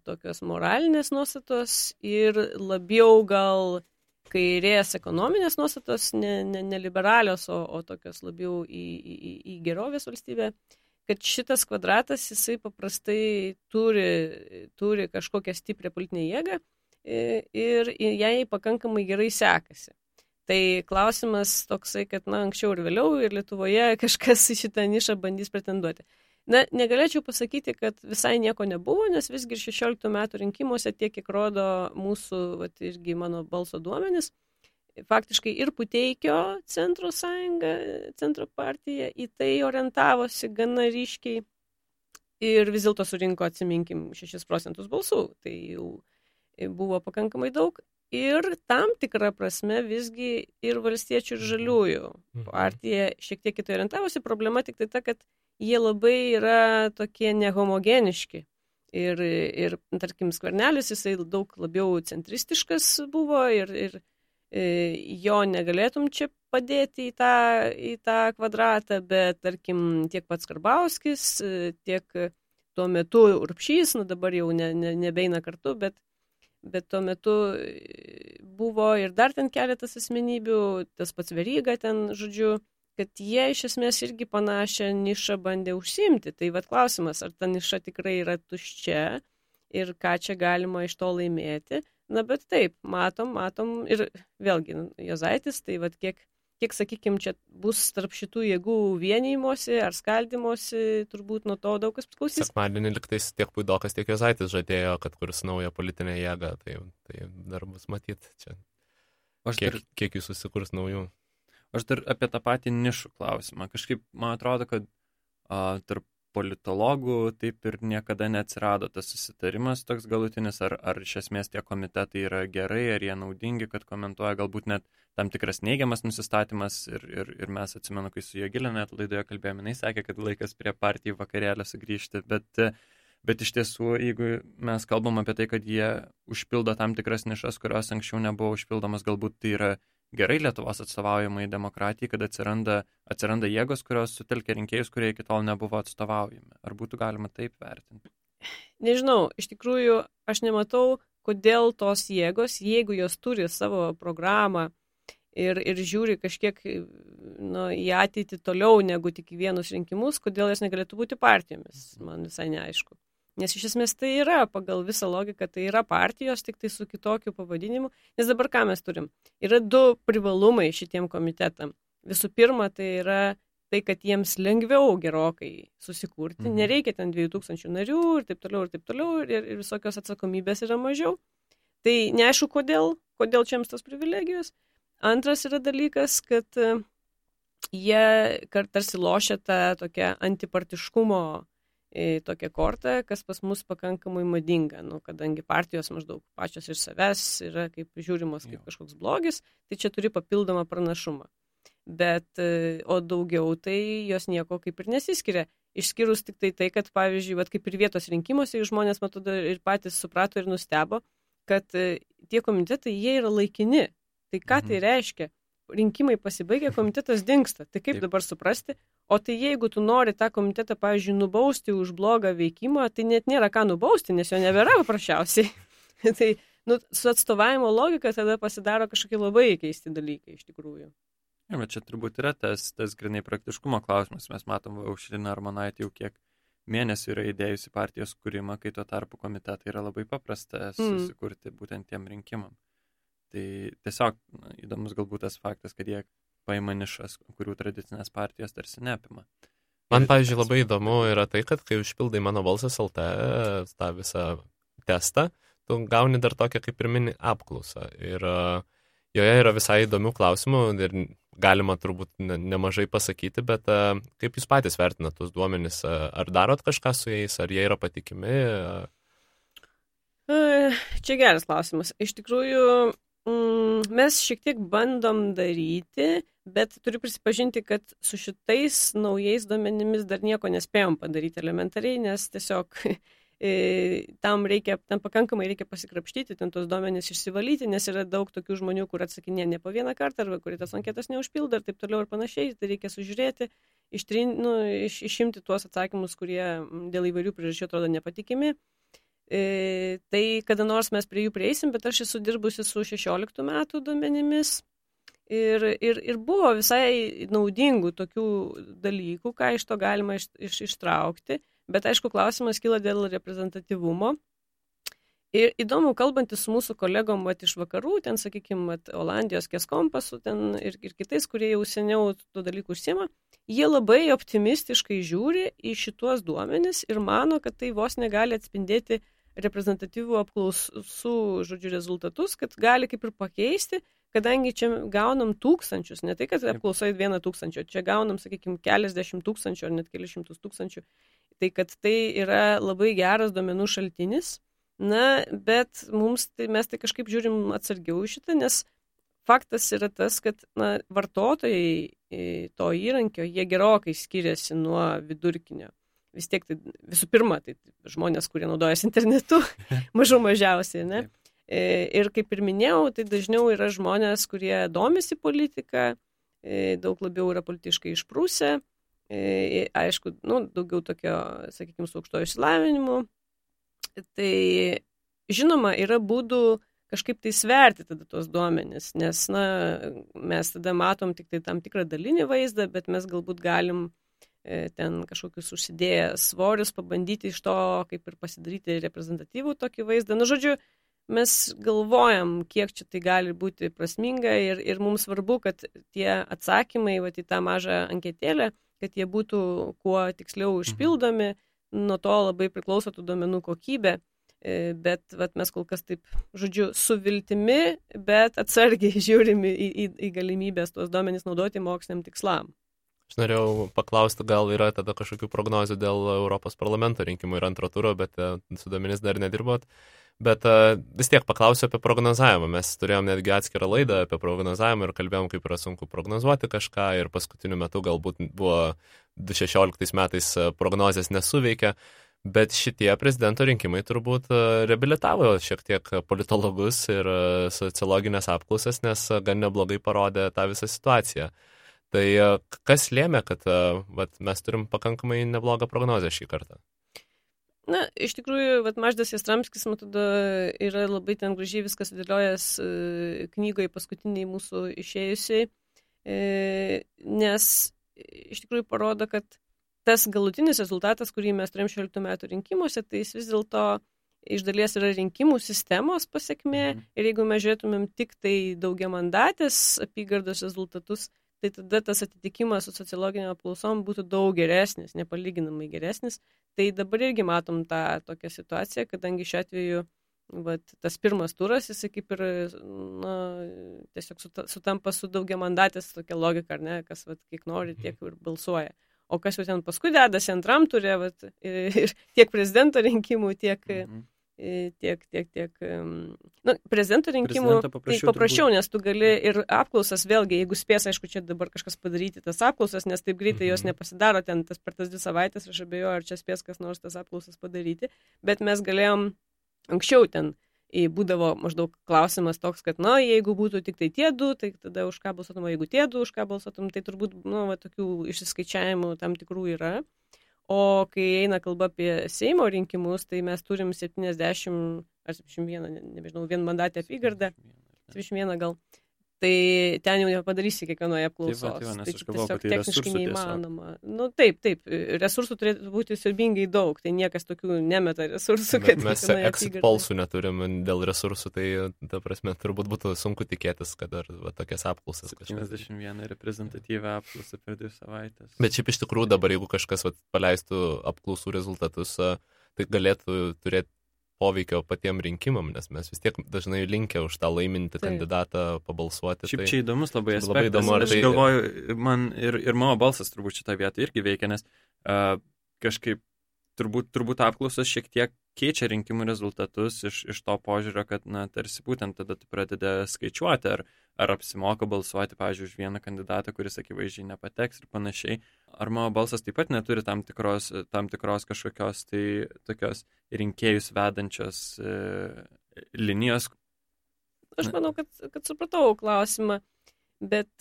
tokios moralinės nuostatos ir labiau gal kairės ekonominės nuostatos, ne liberalios, o tokios labiau į gerovės valstybę, kad šitas kvadratas jisai paprastai turi kažkokią stiprią politinę jėgą ir jai pakankamai gerai sekasi. Tai klausimas toksai, kad anksčiau ir vėliau ir Lietuvoje kažkas į šitą nišą bandys pretenduoti. Negalėčiau pasakyti, kad visai nieko nebuvo, nes visgi 16 metų rinkimuose tiek, kiek rodo mūsų, irgi mano balso duomenys, faktiškai ir Puteikio centro sąjunga, centro partija į tai orientavosi gana ryškiai ir vis dėlto surinko, atsiminkim, 6 procentus balsų. Tai jau buvo pakankamai daug. ir tam tikrą prasme visgi ir valstiečių ir žaliųjų partija šiek tiek kitai orientavosi. Problema tik tai ta, kad jie labai yra tokie nehomogeniški. Ir tarkim, Skvernelis, jisai daug labiau centristiškas buvo ir jo negalėtum čia padėti į tą kvadratą, bet tarkim tiek pats Karbauskis, tiek tuo metu Urbšys, dabar jau nebeina kartu, bet tuo metu buvo ir dar ten keletas asmenybių, tas pats Veryga ten, žodžiu, kad jie iš esmės irgi panašią nišą bandė užsiimti. Tai vat klausimas, ar ta niša tikrai yra tuščia ir ką čia galima iš to laimėti. Na, bet taip, matom ir vėlgi, Juozaitis, tai vat kiek sakykime, čia bus tarp šitų jėgų vienijimosi ar skaldimosi, turbūt nuo to daug kas priklausys. Sekmadienį liktais tiek Puidokas, tiek Juozaitis žadėjo, kad kurs naują politinę jėgą, tai dar bus matyti čia. Kiek jų susikurs naujų? Aš dar apie tą patį nišų klausimą. Kažkaip, man atrodo, kad tarp politologų taip ir niekada neatsirado tas susitarimas toks galutinis, ar iš esmės tie komitetai yra gerai, ar jie naudingi, kad komentuoja galbūt net tam tikras neigiamas nusistatymas ir mes atsimenu, kai su Jogilė net laidoje kalbėjome, jinai sakė, kad laikas prie partijų vakarėlio sugrįžti, bet iš tiesų, jeigu mes kalbam apie tai, kad jie užpildo tam tikras nišas, kurios anksčiau nebuvo užpildomas, galbūt tai yra gerai Lietuvos atstovaujamai demokratijai, kad atsiranda jėgos, kurios sutelkia rinkėjus, kurie iki tol nebuvo atstovaujami. Ar būtų galima taip vertinti? Nežinau, iš tikrųjų, aš nematau, kodėl tos jėgos, jeigu jos turi savo programą ir žiūri kažkiek į ateitį toliau negu tik į vienus rinkimus, kodėl jos negalėtų būti partijomis, man visai neaišku. Nes iš esmės tai yra, pagal visą logiką, tai yra partijos, tik tai su kitokiu pavadinimu. Nes dabar ką mes turim? Yra du privalumai šitiem komitetam. Visų pirma, tai yra tai, kad jiems lengviau gerokai susikurti. Nereikia ten 2000 narių ir taip toliau, ir visokios atsakomybės yra mažiau. Tai neaišku, kodėl čia jiems tos privilegijos. Antras yra dalykas, kad jie tarsi lošia tą tokią antipartiškumo tokią kortą, kas pas mus pakankamai madinga, kadangi partijos maždaug pačios iš savęs yra kaip žiūrimos kaip kažkoks blogis, tai čia turi papildomą pranašumą. Bet, o daugiau tai jos nieko kaip ir nesiskiria. Išskyrus tik tai, kad pavyzdžiui, kaip ir vietos rinkimuose, žmonės matau ir patys suprato ir nustebo, kad tie komitetai, jie yra laikini. Tai ką tai reiškia? Rinkimai pasibaigia, komitetas dingsta. Tai kaip dabar suprasti? O tai jeigu tu nori tą komitetą, pavyzdžiui, nubausti už blogą veikimą, tai net nėra ką nubausti, nes jo nebėra paprasčiausiai. Tai su atstovavimo logika tada pasidaro kažkokie labai keisti dalykai iš tikrųjų. Ja, bet čia turbūt yra tas grinai praktiškumo klausimas. Mes matom, Aušrinė Armonaitė jau kiek mėnesių yra įdėjusi partijos kūrimą, kai tuo tarpu komitetai yra labai paprasta susikurti būtent tiem rinkimam. Tai tiesiog įdomus galbūt tas faktas, kad jie paima nišas, kurių tradicinės partijos tarsi neapima. Man, pavyzdžiui, labai įdomu yra tai, kad kai užpildai Mano balsas LT tą visą testą, tu gauni dar tokią kaip ir mini apklausą. Ir joje yra visai įdomių klausimų ir galima turbūt nemažai pasakyti, bet kaip jūs patys vertinat tuos duomenis? Ar darot kažką su jais, ar jie yra patikimi? Čia geras klausimas. Iš tikrųjų, mes šiek tiek bandom daryti, bet turiu prisipažinti, kad su šitais naujais duomenimis dar nieko nespėjom padaryti elementariai, nes tiesiog tam pakankamai reikia pasikrapštyti, ten tos duomenys išsivalyti, nes yra daug tokių žmonių, kur atsakinė ne po vieną kartą, arba kurie tas anketas neužpildo ir taip toliau ir panašiai, tai reikia sužiūrėti, išimti tuos atsakymus, kurie dėl įvairių priežasčių atrodo nepatikimi. Tai kada nors mes prie jų prieisim, bet aš esu dirbusi su 16 metų duomenimis ir buvo visai naudingų tokių dalykų, ką iš to galima ištraukti, bet aišku, klausimas kyla dėl reprezentatyvumo. Ir įdomu, kalbantis su mūsų kolegom iš vakarų, ten, sakykime, Olandijos Keskompasu ten ir kitais, kurie jau seniau tų dalykų užsiema, jie labai optimistiškai žiūri į šituos duomenis ir mano, kad tai vos negali atspindėti reprezentatyvų apklausų, rezultatus, kad gali kaip ir pakeisti, kadangi čia gaunam tūkstančius, ne tai, kad apklausai 1,000, čia gaunam, sakykime, keliasdešimt tūkstančių ar net kelišimtus tūkstančių, tai kad tai yra labai geras duomenų šaltinis, Na, bet mes tai kažkaip žiūrim atsargiau šitą, nes faktas yra tas, kad vartotojai to įrankio, jie gerokai skiriasi nuo vidurkinio. Vis tiek, visų pirma, tai žmonės, kurie naudojasi internetu, mažiausiai, ne? Ir kaip ir minėjau, tai dažniau yra žmonės, kurie domisi politiką, daug labiau yra politiškai išprūsę, aišku, daugiau tokio, sakykime, su aukštojo išsilavinimu. Tai, žinoma, yra būdų kažkaip tai sverti tada tos duomenis, nes, mes tada matom tik tai tam tikrą dalinį vaizdą, bet mes galbūt galim ten kažkokius užsidėję svorius pabandyti iš to, kaip ir pasidaryti reprezentatyvų tokį vaizdą. Žodžiu, mes galvojam, kiek čia tai gali būti prasminga ir mums svarbu, kad tie atsakymai į tą mažą anketėlę, kad jie būtų kuo tiksliau užpildomi, nuo to labai priklauso tų duomenų kokybė. Bet mes kol kas taip, žodžiu, su viltimi, bet atsargiai žiūrime į galimybės tuos duomenys naudoti moksliniam tikslam. Aš norėjau paklausti, gal yra tada kažkokių prognozių dėl Europos parlamento rinkimų ir antro turo, bet su duomenys dar nedirbot. Bet vis tiek paklausiu apie prognozavimą. Mes turėjom netgi atskirą laidą apie prognozavimą ir kalbėjom, kaip yra sunku prognozuoti kažką ir paskutiniu metu galbūt buvo 2016 metais prognozės nesuveikė. Bet šitie prezidento rinkimai turbūt reabilitavo šiek tiek politologus ir sociologinės apklausas, nes gan neblogai parodė tą visą situaciją. Tai kas lėmė, kad mes turim pakankamai neblogą prognozę šį kartą? Iš tikrųjų, Mažvydas Jastramskis, man tada yra labai ten gražiai viskas sudėliojęs knygoje paskutiniai mūsų išėjusiai, nes iš tikrųjų parodo, kad tas galutinis rezultatas, kurį mes turėjom 16 metų rinkimuose, tai jis vis dėlto iš dalies yra rinkimų sistemos pasiekmė ir jeigu mes žiūrėtumėm tik tai daugiamandatės apygardos rezultatus, tai tada tas atitikimas su sociologinio apklausom būtų daug geresnis, nepalyginamai geresnis. Tai dabar irgi matom tą tokią situaciją, kadangi šiuo atveju tas pirmas turas, jisai kaip ir tiesiog sutampa su daugiamandatės tokia logika, ar ne, kas kiek nori, tiek ir balsuoja. O kas jau ten paskui dedasi antram turė, ir tiek prezidento rinkimų, tiek prezidento rinkimų tai paprasčiau, nes tu gali ir apklausas vėlgi, jeigu spės, aišku, čia dabar kažkas padaryti tas apklausas, nes taip greitai jos nepasidaro ten per tas 2 savaitės, aš abejoju, ar čia spės kas nors tas apklausas padaryti, bet mes galėjom anksčiau ten būdavo maždaug klausimas toks, kad, jeigu būtų tik tai tie 2, tai tada už ką balsuotum, jeigu tie 2, už ką balsuotum, tai turbūt, tokių išsiskaičiavimų tam tikrų yra. O kai eina kalba apie Seimo rinkimus, tai mes turim 70 ar 71, nežinau, vienmandatę apygardą, 71 gal. Tai ten jau nepadarysi kiekvienoje apklausos. Tai tiesiog techniškai neįmanoma. Taip, resursų turėtų būti siaubingai daug, tai niekas tokių nemeta resursų. Mes exit polsų neturim dėl resursų, tai ta prasme turbūt būtų sunku tikėtis, kad dar tokias apklausas. 71 reprezentatyvę apklausą per 2 savaitės. Bet šiaip iš tikrųjų dabar, jeigu kažkas paleistų apklausų rezultatus, tai galėtų turėti poveikio patiem rinkimam, nes mes vis tiek dažnai linkę už tą laimintį kandidatą pabalsuoti. Šiaip čia įdomus labai aspektas. Aš galvoju, man ir mano balsas turbūt šitą vietą irgi veikia, nes kažkaip turbūt apklausos šiek tiek keičia rinkimų rezultatus iš to požiūrio, kad, tarsi būtent tada tu pradedi skaičiuoti, ar apsimoka balsuoti, pavyzdžiui, už vieną kandidatą, kuris akivaizdžiai nepateks ir panašiai. Ar mano balsas taip pat neturi tam tikros kažkokios tai tokios rinkėjus vedančios linijos? Aš manau, kad supratau klausimą, bet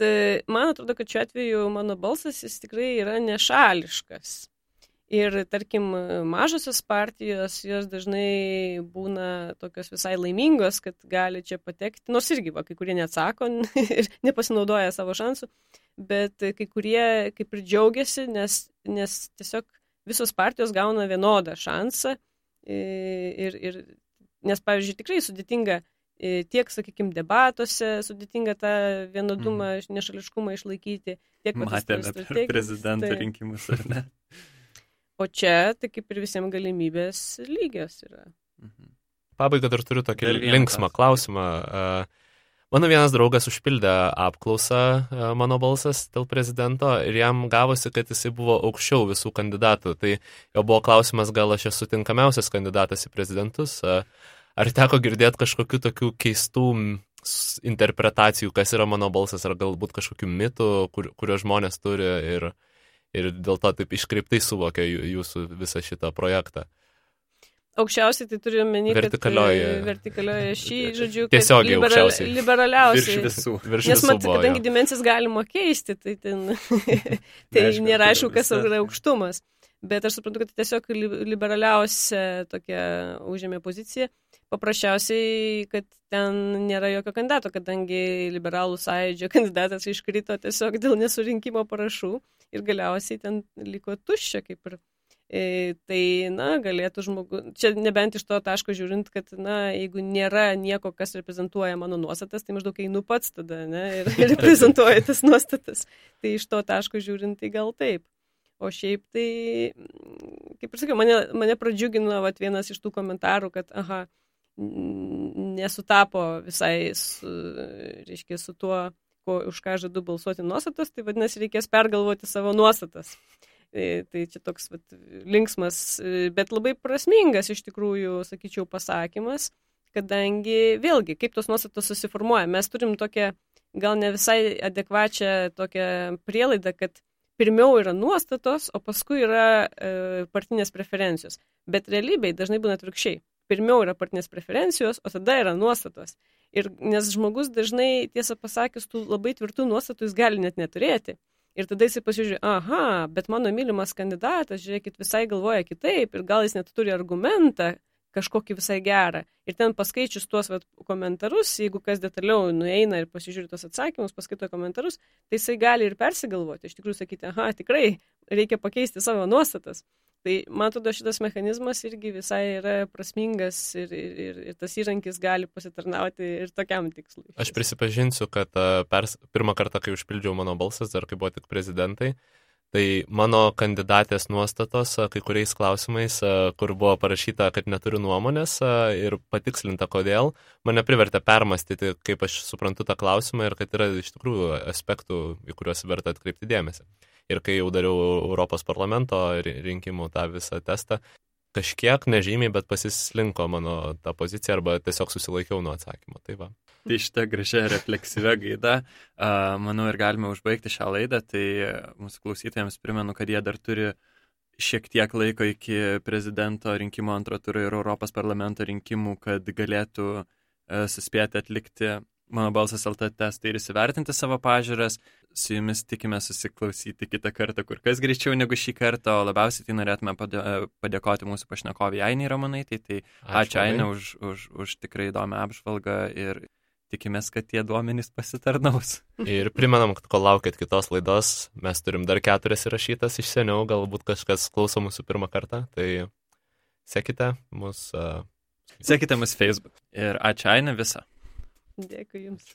man atrodo, kad šiuo atveju mano balsas jis tikrai yra nešališkas. Ir, tarkim, mažosios partijos, jos dažnai būna tokios visai laimingos, kad gali čia patekti, nors irgi, kai kurie neatsako ir nepasinaudoja savo šansų, bet kai kurie kaip ir džiaugiasi, nes tiesiog visos partijos gauna vienodą šansą. Nes, pavyzdžiui, tikrai sudėtinga tiek, sakykime, debatuose, sudėtinga tą vienodumą, nešališkumą išlaikyti. Matėme per prezidento rinkimus, ar ne? O čia, tai kaip ir visiems galimybės lygios yra. Pabaiga dar turiu tokį linksmą klausimą. Mano vienas draugas užpildė apklausą Mano balsas dėl prezidento ir jam gavosi, kad jisai buvo aukščiau visų kandidatų. Tai jo buvo klausimas, gal aš esu tinkamiausias kandidatas į prezidentus. Ar teko girdėti kažkokių tokių keistų interpretacijų, kas yra Mano balsas, ar galbūt kažkokių mitų, kurio žmonės turi ir dėl to taip iškreiptai suvokia jūsų visą šitą projektą. Aukščiausiai tai turiu menį, vertikalioje šį, žodžiu, tiesiogiai aukščiausiai. Liberaliausiai. Virš Nes visų buvo. Kadangi dimensijas galima keisti, tai ten tai nėra aišku, kas yra aukštumas. Bet aš suprantu, kad tiesiog liberaliausia tokia užėmė pozicija. Paprasčiausiai, kad ten nėra jokio kandidato, kadangi liberalų sąjūdžio kandidatas iškrito tiesiog dėl nesurinkimo parašų ir galiausiai ten liko tuščia kaip ir. Tai, galėtų žmogus, čia nebent iš to taško žiūrint, kad, jeigu nėra nieko, kas reprezentuoja mano nuostatas, tai maždaug einu pats tada, ir reprezentuoja tas nuostatas. Tai iš to taško žiūrint, tai gal taip. O šiaip tai, kaip ir sakiau, mane pradžiugino vienas iš tų komentarų, kad, nesutapo visai su tuo, už ką žadu balsuoti nuostatas, tai vadinasi, reikės pergalvoti savo nuostatas. Tai čia toks linksmas, bet labai prasmingas iš tikrųjų, sakyčiau, pasakymas, kadangi vėlgi, kaip tos nuostatos susiformuoja. Mes turim tokią gal ne visai adekvačią tokią prielaidą, kad pirmiau yra nuostatos, o paskui yra partinės preferencijos. Bet realybėj dažnai būna atvirkščiai. Pirmiau yra partinės preferencijos, o tada yra nuostatos. Ir nes žmogus dažnai, tiesą pasakius, tų labai tvirtų nuostatų jis gali net neturėti. Ir tada jisai pasižiūrė, bet mano mylimas kandidatas, žiūrėkit, visai galvoja kitaip ir gal jis net turi argumentą kažkokį visai gerą. Ir ten paskaičius tuos komentarus, jeigu kas detaliau nueina ir pasižiūri tos atsakymus, paskaito komentarus, tai jisai gali ir persigalvoti. Iš tikrųjų sakyti, tikrai reikia pakeisti savo nuostatas. Tai man atrodo, šitas mechanizmas irgi visai yra prasmingas ir tas įrankis gali pasitarnauti ir tokiam tikslui. Aš prisipažinsiu, kad pirmą kartą, kai užpildžiau Mano balsas, dar kai buvo tik prezidentai, tai mano kandidatės nuostatos kai kuriais klausimais, kur buvo parašyta, kad neturiu nuomonės ir patikslinta kodėl, mane privertė permastyti, kaip aš suprantu tą klausimą ir kad yra iš tikrųjų aspektų, į kuriuos verta atkreipti dėmesį. Ir kai jau dariau Europos parlamento rinkimų tą visą testą, kažkiek nežymiai, bet pasislinko mano tą poziciją arba tiesiog susilaikiau nuo atsakymo. Tai va. Tai šitą gražią refleksyvę gaidą, manau, ir galime užbaigti šią laidą. Tai mūsų klausytojams primenu, kad jie dar turi šiek tiek laiko iki prezidento rinkimų antro turo ir Europos parlamento rinkimų, kad galėtų suspėti atlikti Mano balsas LT testą ir įsivertinti savo pažiūras. Su jumis tikime susiklausyti kitą kartą kur kas greičiau negu šį kartą, o labiausiai tai norėtume padėkoti mūsų pašnekovei Ainei Ramonaitei. Tai ačiū Ainė už tikrai įdomią apžvalgą ir tikimės, kad tie duomenys pasitarnaus. Ir primenam, kad kol laukit kitos laidos, mes turim dar 4 įrašytas iš seniau, galbūt kažkas klauso mūsų pirmą kartą, tai sekite mus. Sekite mus Facebook. Ir ačiū Ainė visą. Dėkui jums.